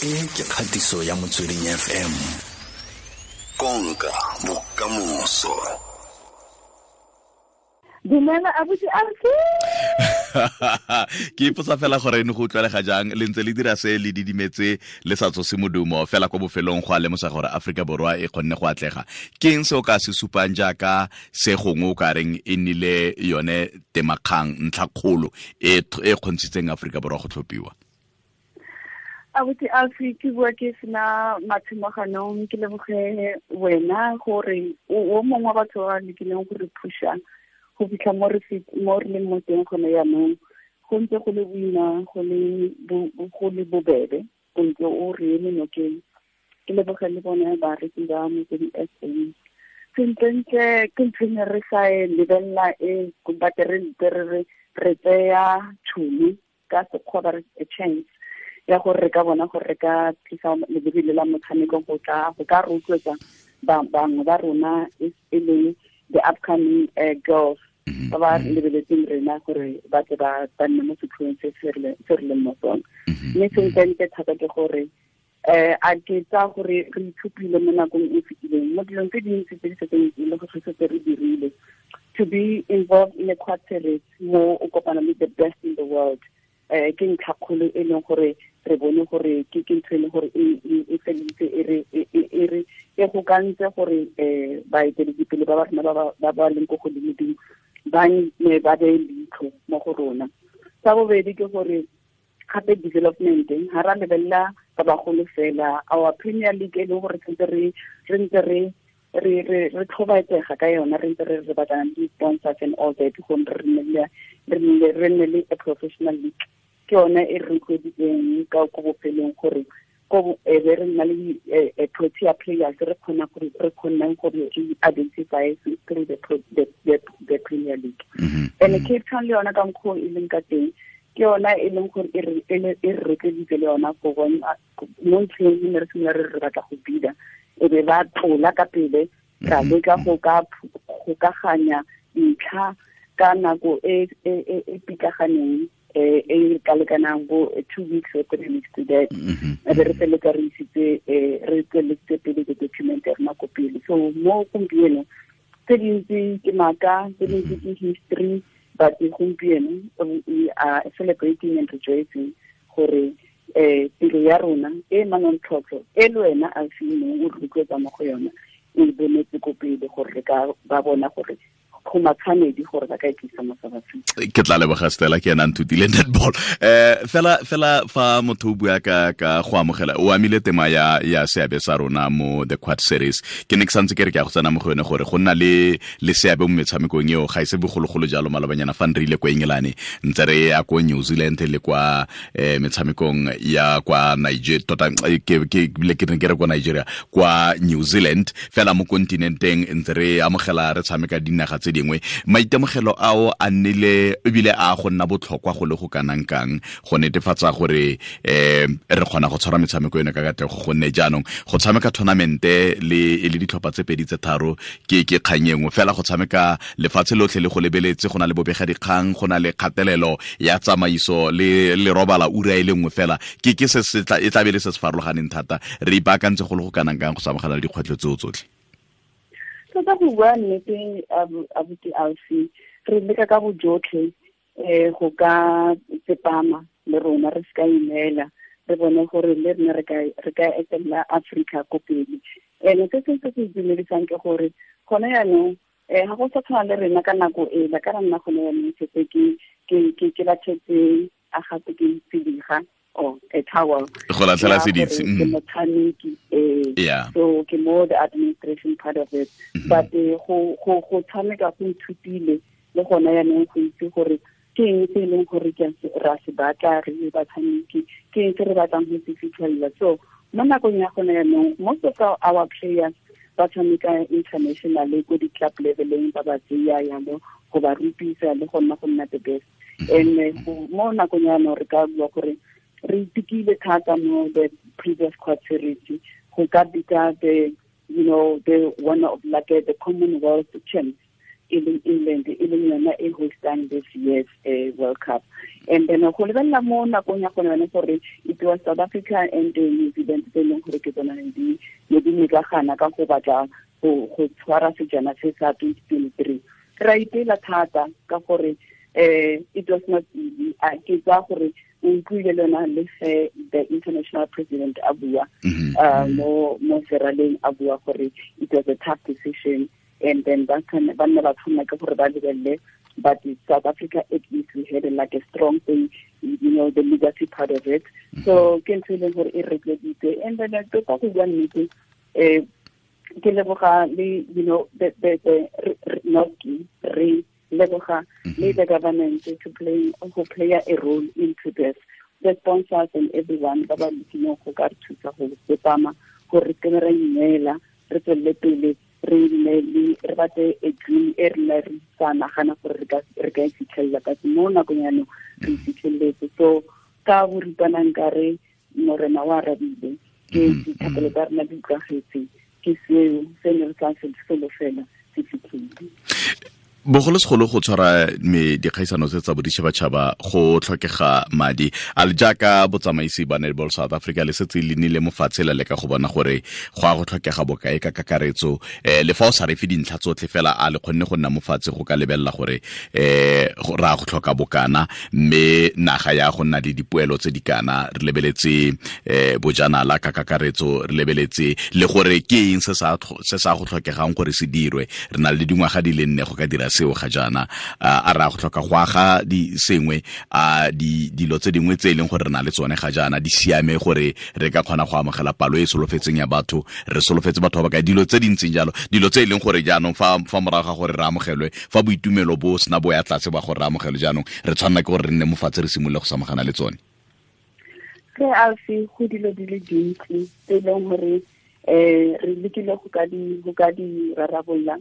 E ke kgatiso ya Motsweding FM. Konka bokamoso. Dumela abuti Alfi. Ke ipotsa fela gore ne go utlwalega jang le ntse le dira se le didimetse le sa tsose modumo fela kwa bofelong go a lemosa gore Aforika Borwa e kgonne go atlega. Ke eng se o ka se supang jaaka se gongwe o ka reng e nnile yone temakgang ntlhakgolo e e kgontshitseng Aforika Borwa go tlhophiwa? Abuti Alfi, ke bua ke sena matshimoganong, ke leboge wena gore o mongwe wa batho ba lekileng go re phusha go fitlha mo re leng mo teng gone jaanong. Go ntse go le boima, go le bobebe, o ntse o re eme nokeng. Ke leboge le bone bareki ba Motsweding FM. Sentlentle ke ntho e ne re sa e lebelela e, but re ntse re tseya tšhono ka sekgwa ba re a chance ya gore re ka bona gore re ka tlisa lebebele la motshameko go ka rotloetsa bangwe ba rona e leng the upcoming girls ba ba lebeletseng rena gore ba tle ba nne mo setlhoeng se se re leng mo sone. Mme sentlentle thata ke gore a ke tsa gore re ithupile mo nakong e fetileng mo dilong tse dintsi tse di setseng e le gore setse re dirile. To be involved in a quad series mo o kopana le the best in the world, ke ntlhakgolo e leng gore re bone gore ke ntho e leng gore e feleditse e re e gokantse gore baeteledipele ba ba rona ba ba leng ko godimo-dimo ba ne ba beye leitlho mo go rona. Sa bobedi ke gore gape development ha ra lebelela ba bagolo fela, our Premier League e leng gore sentse re ntse re tlhobaetsega ka yona, re ntse re batlana le di-sponsors and all that gore re nne le a professional league. Ke yone e re rotloeditseng ka ko bofelong gore ko e be re nna le Protea players re kgonang gore re identify through the Premier League. And Cape Town le yona ka mokgwa e leng ka teng ke yona e leng gore e re rotloeditse le yona go bona mo ntlheng e ne re simolola re batla go bida, e be ba tlola ka pele ra leka go ka gokaganya dintlha ka nako e e pitlaganeng e ka lekanang bo 2 weeks or 3 weeks to that. E be re feletsa re isitse re tsweletse pele the document ya rona ko pele. So mo gompieno tse dintsi ke maaka, tse dintsi ke history, but gompieno we are celebrating and rejoicing gore tiro ya rona e manontlhotlho e le wena a seng o rotloetsa mo go yona e bonetse ko pele gore re ka ba bona gore go matshwanedi gore ba ka e tlisa mo South Africa. Ke tla leboga Stella, ke ena nthutile netball. Fela fa motho o bua ka go amogela, o amile tema ya seabe sa rona mo the Quad Series. Ke ne ke santse ke re ke a go tsena mo go yone gore go nna le seabe mo metshamekong eo ga e se bogologolo jalo. Malobanyana fa re ile kwa England, ntse re ya ko New Zealand le kwa metshamekong ya kwa Nigeria, tota ke ke re kwa Nigeria, kwa New Zealand fela mo kontinenteng ntse re amogela re tshameka dinaga tse dingwe. Maitemogelo ao a nnile ebile a go nna botlhokwa go le go kanang kang go netefatsa gore re kgona go tshwara metshameko eno ka katlego, gonne jaanong go tshameka tournamente le le ditlhopha tse pedi tse tharo ke kgang e nngwe fela. Go tshameka lefatshe lotlhe le go lebeletse, go na le bobega dikgang, go na le kgatelelo ya tsamaiso le robala ura e le nngwe fela, ke se se tla e tla be le se se farologaneng thata. Re ipaakantse go le go kanang kang go samagana le dikgwetlho tseo tsotlhe? Tota go bua nnete abuti Alfi, re leka ka bojotlhe go ka tsepama le rona, re se ka ineela, re bone gore le rena re ka etelela Africa ko pele. And se sengwe se se itumedisang ke gore gone jaanong ga go sa tshwana le rena ka nako ela, ka nna gone jaanong setse ke latlhetse a gape ke tsediga or a towel go latlhela seditse ke motshameki, so ke mo the administration part of it. But go tshameka go nthutile le gona jaanong go itse gore ke eng se e leng gore ra se batla re le batshameki, ke eng se re batlang go se fitlhelela. So mo nakong ya gone jaanong most of our players ba tshameka internationally ko di-club leveleng, ba ba tseya yalo go ba rupisa le go nna the best. And mo nakong ya jaanong re ka bua gore re itekile thata mo the previous Quad Series go ka bitsa the, you know, the one of like the Commonwealth champs. e leng England, e leng yona e hostang this year's World Cup. And then go lebelela mo nakong ya gone yone gore it was South Africa and New Zealand tse e leng gore ke tsona di ne di mekagana ka go batla go tshwara sejana se sa 2023. Ra ipela thata ka gore it was not easy. A ke tsa gore o utlwile le yona le ge the international president a bua mo seraleng a bua gore it was a tough decision, and then ba nna ba tshwanela ke gore ba lebelele. But in South Africa, at least we had like a strong thing, you know, the legacy part of it. So ke ntho e leng gore e retleditse. And then tota go bua nnete, ke leboga le, you know, the re leboga le the government to play go play a role into this, the sponsors and everyone ba ba lekileng go ka re thusa go tsepama gore re kene ra ineela, re tswelele pele, re nne le re batle a dream e re re sa nagana gore re ka e fitlhelela, but mo nakong yaanong re e fitlheletse. So ka boripana nkare morena wa arabile, ke dithapelo tsa rena di utlwagetse, ke seo se ne re sa se solofela se fitlhile. Bogolosegolo go tshwara me dikgaisano tse tsa boditšhabatšhaba go tlhokega madi a le jaaka botsamaisi ba Netball South Africa le setse le nnile mo fatshe la leka go bona gore go a go tlhokega bokae ka kakaretso, le fa o sa refe dintlha tsotlhe fela a le kgonne go nna mo fatshe go ka lebelela gore ra go tlhoka bokana mme naga ya go nna le dipoelo tse di kana, re lebeletse bojanala ka kakaretso, re lebeletse le gore ke eng se sa go tlhokegang gore se dirwe. Re na le dingwaga di le nne go ka dira seo ga jaana, a ra go tlhoka go aga di sengwe, a dilo tse dingwe tse e leng gore re na le tsone ga jaana di siame gore re ka kgona go amogela palo e solofetseng ya batho, re solofetse batho ba ba kae, dilo tse di ntseng jalo, dilo tse e leng gore jaanong fa morago ga gore re amogelwe, fa boitumelo bo sena bo ya tlase ba gore re amogelwe, jaanong re tshwanela ke gore re nne mo fatshe re simolole go samagana le tsone. Re alfe go dilo di le dintsi tse e leng gore re lekile go ka di rarabolola.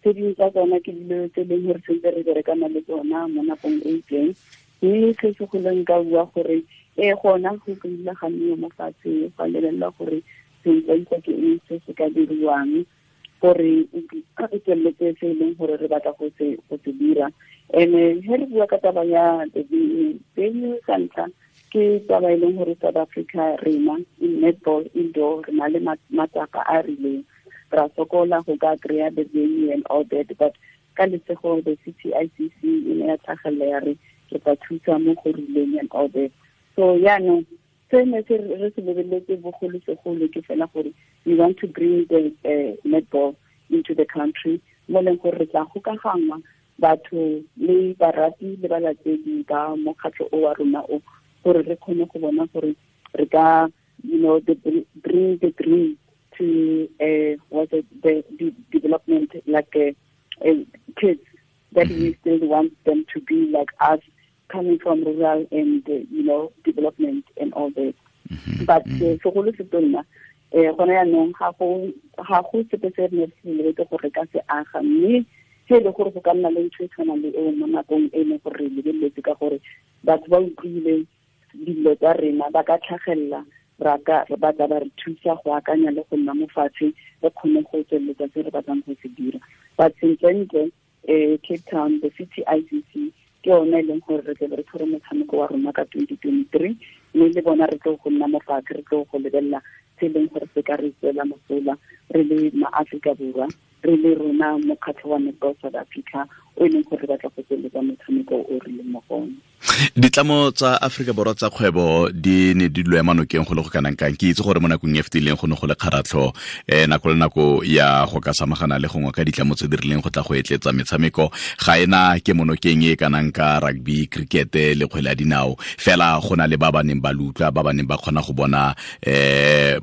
Tse dingwe tsa tsona ke dilo tse e leng gore sentse re berekana le tsona mo nakong e itseng, mme se segolo nka bua gore gona go kile ga nniwa mo fatshe go lebelela gore sentle ke eng se se ka diriwang gore re tsweletse se e leng gore re batla go se dira. And he re bua ka taba ya the venue sa ntlha, ke taba e leng gore South Africa rena in netball indoor re na le matsapa a rileng, ra sokola go ka kry-a the venue and all that, but ka lesego the CTICC e ne ya tlhagelela ya re re tla thusa mo go rileng and all that. So yaanong se ne se re se lebeletse bogolosegolo ke fela gore we want to bring the netball into the country, mo leng gore re tla gokagangwa batho le barati le balatedi ba mokgatlho o wa rona o, gore re kgone go bona gore re ka, you know, bring the dream to what is the development, like kids that we still want them to be like us, coming from rural and you know, development and all that. But segolo se tonna gona yaanong ga go sepe se re ne re se lebetse gore ka se aga, mme se e le gore go ka nna le ntho e tshwanang le eo mo nakong e leng gore re lebeletse, ka gore batho ba utlwile dilo tsa rena, ba ka tlhagelela, ba tla ba re thusa go akanya le go nna mo fatshe re kgone go tsweletsa se re batlang go se dira. But sentlentle Cape Town, the CTICC ke yone e leng gore re tle re tshware motshameko wa rona ka 2023, mme le bona re tlo go nna mo fatshe, re tlo go lebelela se e leng gore se ka re tswela mosola re le maAforika Borwa, re le rona mokgatlho wa Netball South Africa o e leng gore re batla go tsweletsa motshameko o re leng mo go one. Ditlamo tsa Afrika Borwa tsa kgwebo di ne di lo ema nokeng go le go kanang kang? Ke itse gore mo nakong e fetileng go ne go le kgaratlho nako le nako ya go ka samagana le gongwe ka ditlamo tse di rileng go tla go etletsa metshameko, ga ena ke monokeng e kanang ka rugby, cricket le kgwele ya dinao, fela go na le ba ba neng ba lutlwa, ba ba neng ba kgona go bona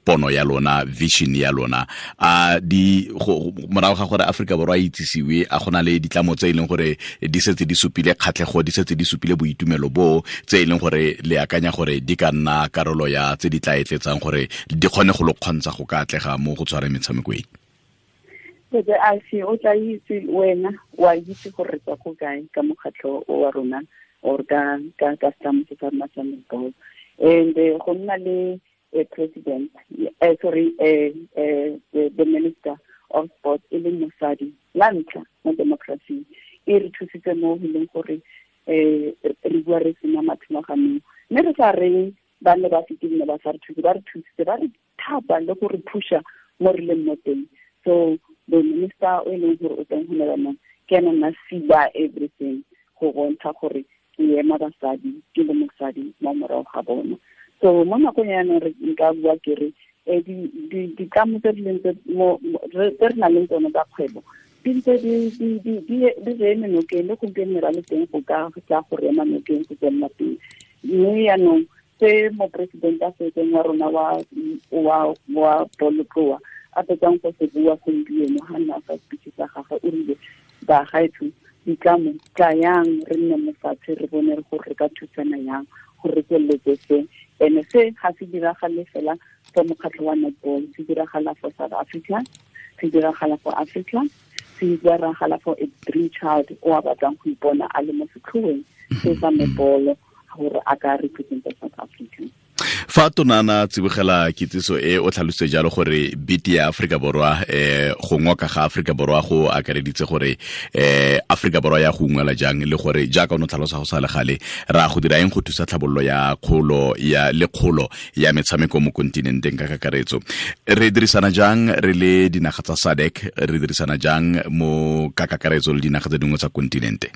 pono ya lona, vision ya lona. A di morago ga gore Afrika Borwa e itsisiwe, a gona le ditlamo tse e leng gore di setse di supile kgatlhego, di setse di supile boitumelo bo tse e leng gore le akanya gore di ka nna karolo ya tse di tla etletsang gore di kgone go lo kgontsha go ka atlega mo go tshwareng metshameko e? Tete Alfi, o tla itse wena, wa itse gore re tswa ko kae ka mokgatlho o wa rona or ka setlamo se sa rona sa netball. And go nna le president, sorry, the minister of sports e leng mosadi la ntlha mo democracy. E re thusitse mo go leng gore re bua re sena mathemaganong, mme re sa reng ba ne ba fetile ba sa re thuse, ba re thusitse, ba re thapa le go re phusha mo re leng mo teng. So the minister o e leng gore o teng go ne jaanong ke ena nna sila everything go bontsha gore ke ema basadi, ke le mosadi mo morago ga bona. So mo nakong ya jaanong re nka bua ke re ditlamo tse di leng tse re nang le tsone tsa kgwebo di ntse di re eme nokeng, le gompieno ra le teng go ka tla go re ema nokeng go tswelela pele. Mme jaanong se moporesidente a setseng wa rona wa bolotloa a fetsang go se bua gompieno ga nna fa speech sa gagwe, o rile bagaetsho ditlamo tlayang re nne mo fatshe re bone gore re ka thusana yang gore re tsweletse se. And se ga se diragale fela for mokgatlho wa netball, se diragala for South Africa, se diragala for Africa, se diragala for a dream child o a batlang go ipona a le mo setlhoeng se sa netball gore a ka representa South Africa. Fa tonana tsibogela kitsiso e o tlhalositse jalo gore biti ya Afrika Borwa go ngoka ga Afrika Borwa go akareditse gore Afrika Borwa ya go ungwela jang, le gore jaaka o ne tlhalosa go sa le gale ra go dira eng go thusa tlhabololo ya kgolo ya le kgolo ya metshameko mo kontinenteng ka kakaretso. Re dirisana jang re le dinaga tsa SADC, re dirisana jang mo ka kakaretso le dinaga tse dingwe tsa kontinente?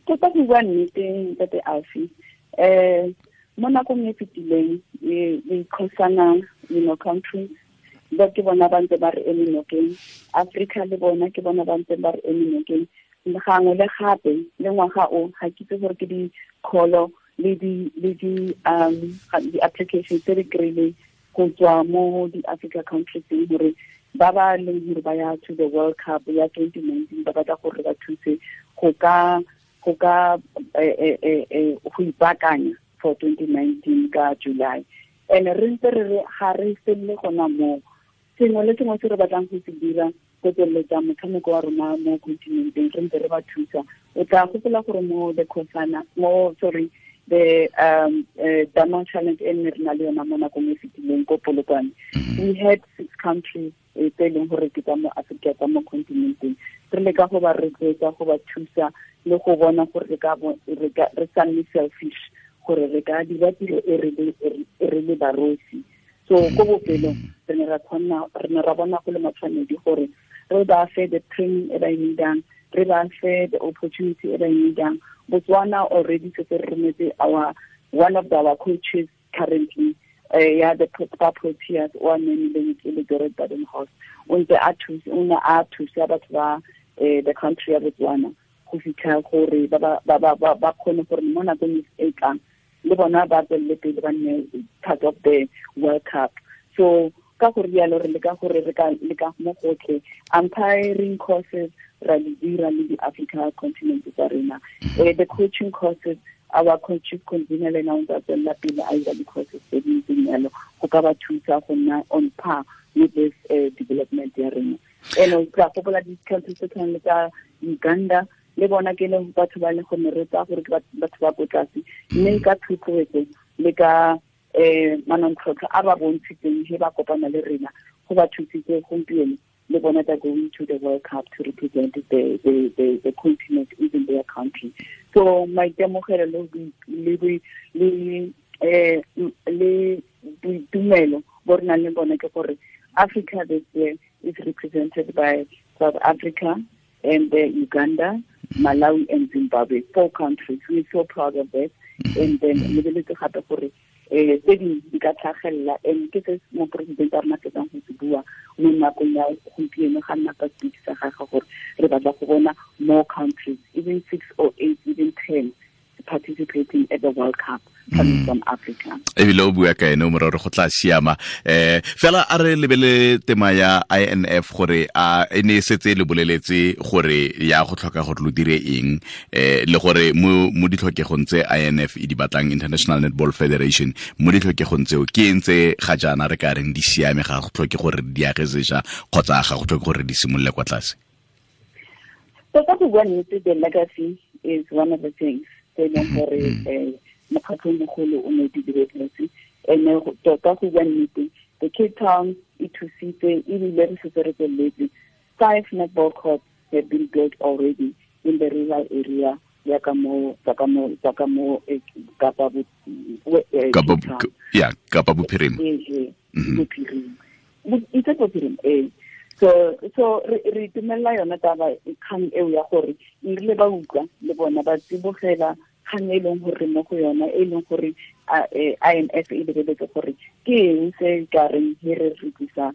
Tota go bua nnete ntate Alfie, mo nakong e fetileng dikgosana, you know, countries ba ke bona ba ntse ba re eme nokeng, Africa le bona ke bona ba ntse ba re eme nokeng. Gangwe le gape le ngwaga o ga ke itse gore ke di-call le di-applications tse re kry-ileng go tswa mo di-Africa countries gore ba ba leng gore ba ya to the World Cup ya 2019 ba batla gore ba thuse go ka go ipaakanya for 2019 ka July. And re ntse re ga re felele gona moo, sengwe le sengwe se re batlang go se dira go tsweletsa motshameko wa rona mo continenteng re ntse re ba thusa. O tla gopola gore mo the Khosana, mo sorry the Diamond Challenge e nne re na le yona mo nakong e fetileng ko Polokwane, we had 6 countries tse e leng gore ke tsa mo Africa, tsa mo continenteng. Re leka go ba rotloetsa, go ba thusa le go bona gore re sa nne selfish, gore re ka dira tiro e re le barosi. So ko bofelong re ne ra bona go le matshwanedi gore re ba fe the training e ba e needang, re ba fe the opportunity e ba e needang. Botswana already setse re rometse our one of our coaches currently, ya the Proteas o a nemileng ke le Gerard Badenhorst, o ntse a thusa, o ne a thusa batho ba the country ya Botswana go fitlha gore ba kgone gore mo nakong e tlang le bona ba tswelele pele ba nne part of the World Cup. So ka gore rialo re leka gore re ka leka mo gotlhe umpiring courses ra di dira le di-Africa continent tsa rena, the coaching courses, our coach convener le ena o ntse a tswelela pele a dira di-courses tse di ntseng jalo go ka ba thusa go nna on par with this development ya rena. And o tla gopola di-countries tse tshwanang le tsa Uganda le bona ke le batho ba le go ne re tsaya gore ke batho ba ko tlase, mme ka thotloetso le ka manontlhotlho a ba bontshitseng he ba kopana le rena go ba thusitse gompieno le bona they're going to the World Cup to represent the continent, even their country. So maitemogelo le boitumelo bo re nang le bone ke gore Africa this year is represented by South Africa and Uganda, Malawi and Zimbabwe, 4 countries. We're so proud of that. And then lebeletse gape gore tse dingwe di ka tlhagelela, and ke se moporesidente a rona fetsang go se bua mo nakong ya gompieno ga nna ka speech sa gagwe gore re batla go bona more countries, even 6 or 8, even 10 participating at the World Cup coming from Africa. Ebile o bua ka ene o morero go tla siama. Fela a re lebele tema ya INF gore a e ne setse le boleletse gore ya go tlhoka gore lo dire eng, le gore mo ditlhokegong tse INF e di batlang, International Netball Federation, mo ditlhokegong tseo ke eng tse ga jaana re ka reng di siame, ga go tlhoke gore di age sešwa kgotsa ga go tlhoke gore di simolole kwa tlase? Tota go bua nnete, the legacy is one of the things tse e leng gore mokgatlho mogolo o ne di diretse. And tota go bua nnete, the Cape Town e thusitse ebile re setse re tsweletse. 5 netball courts have been built already. in the rural area ya ka mo Kapa Kapa Bophirima. Itse Bophirima eh. So re itumella yona taba kgang eo ya gore erile ba utlwa le bona ba tsibogela kgang e leng gore mo go yona e leng gore IMF e lebeletse gore ke eng se ka reng he re re tlisa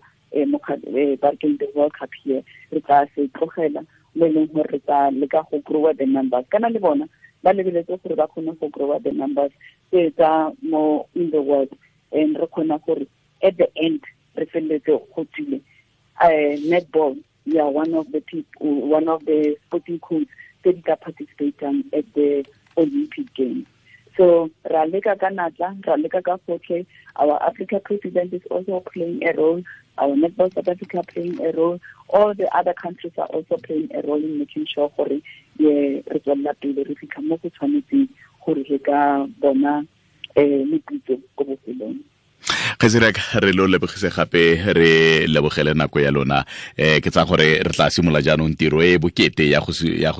barkeng the World Cup here re tla se tlogela mo e leng gore re tla leka go grow the numbers kana le bona ba lebeletse gore ba kgone go grow the numbers tse tsa mo in the world and re kgona gore at the end re feleletse go tswile netball, we are one of the people, one of the sporting codes that are participating at the Olympic Games. So ra leka ka natla, ra leka ka gotlhe. Our Africa president is also playing a role. Our Netball South Africa playing a role. All the other countries are also playing a role in making sure gore re tswella pele re fitlha mo go tshwanetseng gore re ka bona meputso ko bofelong. Kgaitsedi re lo lebogise gape re lebogele nako ya lona ke tsa gore re tla simolola jaanong tiro e bokete ya go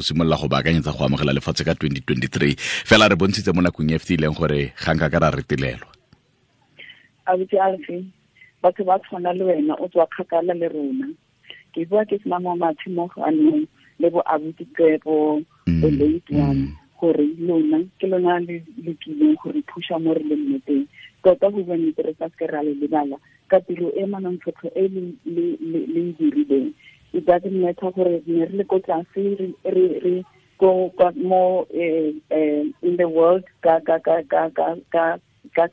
simolola go baakanyetsa go amogela lefatshe ka 2023 fela re bontshitse mo nakong e fetileng gore ga nka ka ra retelelwa. Abuti Alfi, batho ba tshwana le wena o tswa kgakala le rona. Ke bua ke sena mo matshimoganong le bo abuti Tsebo the late one gore lona ke lona le lekileng gore phusha mo re leng mo teng. Tota go bua nnete re sa seke ra le lebala ka tiro e manontlhotlho e le e dirileng. It doesn't matter gore ne re le ko tlase re go mo in the world ka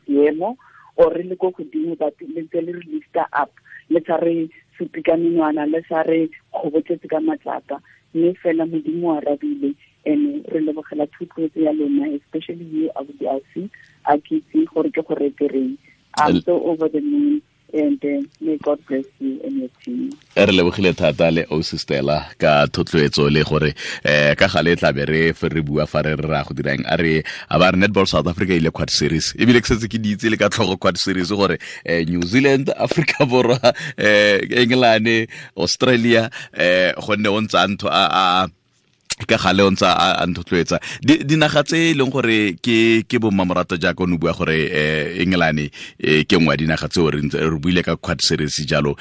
seemo or re le ko godimo but le ntse le re lifta up le sa re supe ka menwana le sa re kgobotletse ka matlapa mme fela Modimo a arabile and re lebogela thotloetso ya lona especially you Abuti Alfi a ke itse gore ke go retereng. I'm so over the moon and may God bless you and your team. Re lebogile thata le Ausi Stella ka thotloetso le gore ka gale tla be re bua fa re ra go dirang a re a ba re Netball South Africa ile Quad Series ebile ke setse ke di itse le ka tlhogo Quad Series gore New Zealand, Africa Borwa, England, Australia gonne o ntse a ntho a ka gale o ntse a nthotloetsa dinaga tse e leng gore ke bo mmamorato jaaka o ne bua gore England ke nngwe ya dinaga tseo re buile ka Quad Series jalo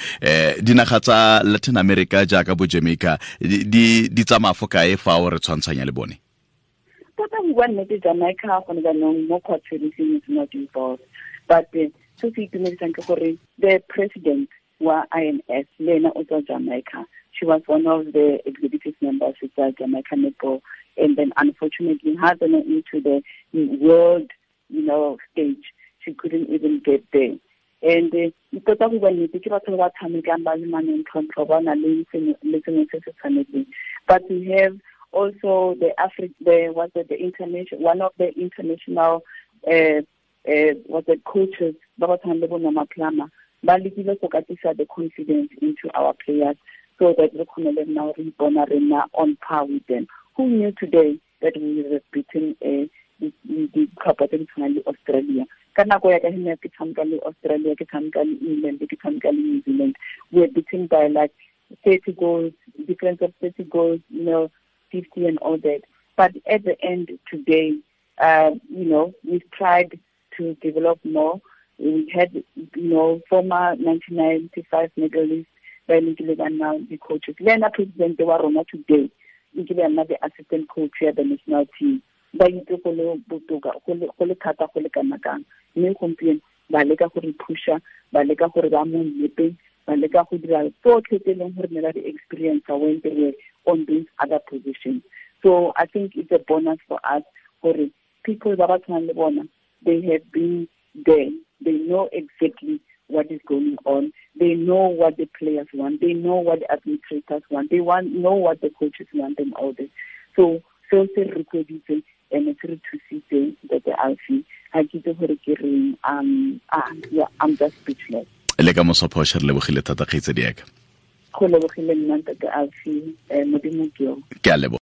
dinaga tsa Latin America jaaka bo Jamaica di tsamaya fo kae fa o re tshwantshanya le bone? Tota go bua nnete Jamaica gone jaanong mo Quad Series is not involved but se se itumedisang ke gore the president wa IMS le ena o tswa Jamaica. She was one of the executive members of the Jamaica Netball, and then unfortunately, had gone into the world, stage. She couldn't even get there. And tota go bua nnete ke batho ba tshamekang ba le manontlhotlho ba na le sengwe se se tshwanetseng. But we have also the one of the international coaches ba ba tshwanang le bo Norma Plummer ba lekile go katisa the confidence into our players so that we can now re on par with them. Who knew today that we would have beaten the club tse Australia? Ka nako ya ka he ke tshameka le Australia, ke tshameka le England, ke tshameka le New Zealand. We were beaten by like 30 goals, difference of 30 goals, 50 and all that. But at the end today, we've tried to develop more. We had, former 1995 medalists, ba ile ba nna di-coaches. Le ena president wa rona today, nkile ya nna the assistant coach ya the national team. Ba itse go le botoka, go le thata go le kana kang. Mme gompieno ba leka go re pusha, ba leka gore ba mo nneteng, ba leka go dira tsotlhe tse e leng gore ne ba di experience when they were on these other positions. So I think it's a bonus for us gore people ba ba tshwanang le bona, they have been there. They know exactly what is going on. They know what the players want. They know what the administrators want. They know what the coaches want and all this. So se re rotloeditse and se re thusitse Ntate Alfi. Ha ke itse gore ke reng. I'm just speechless. Le ka moso Phosha re lebogile thata kgaitsedi ya ka. Go lebogile nna Ntate Alfi, Modimo ke yo. Ke a leboga.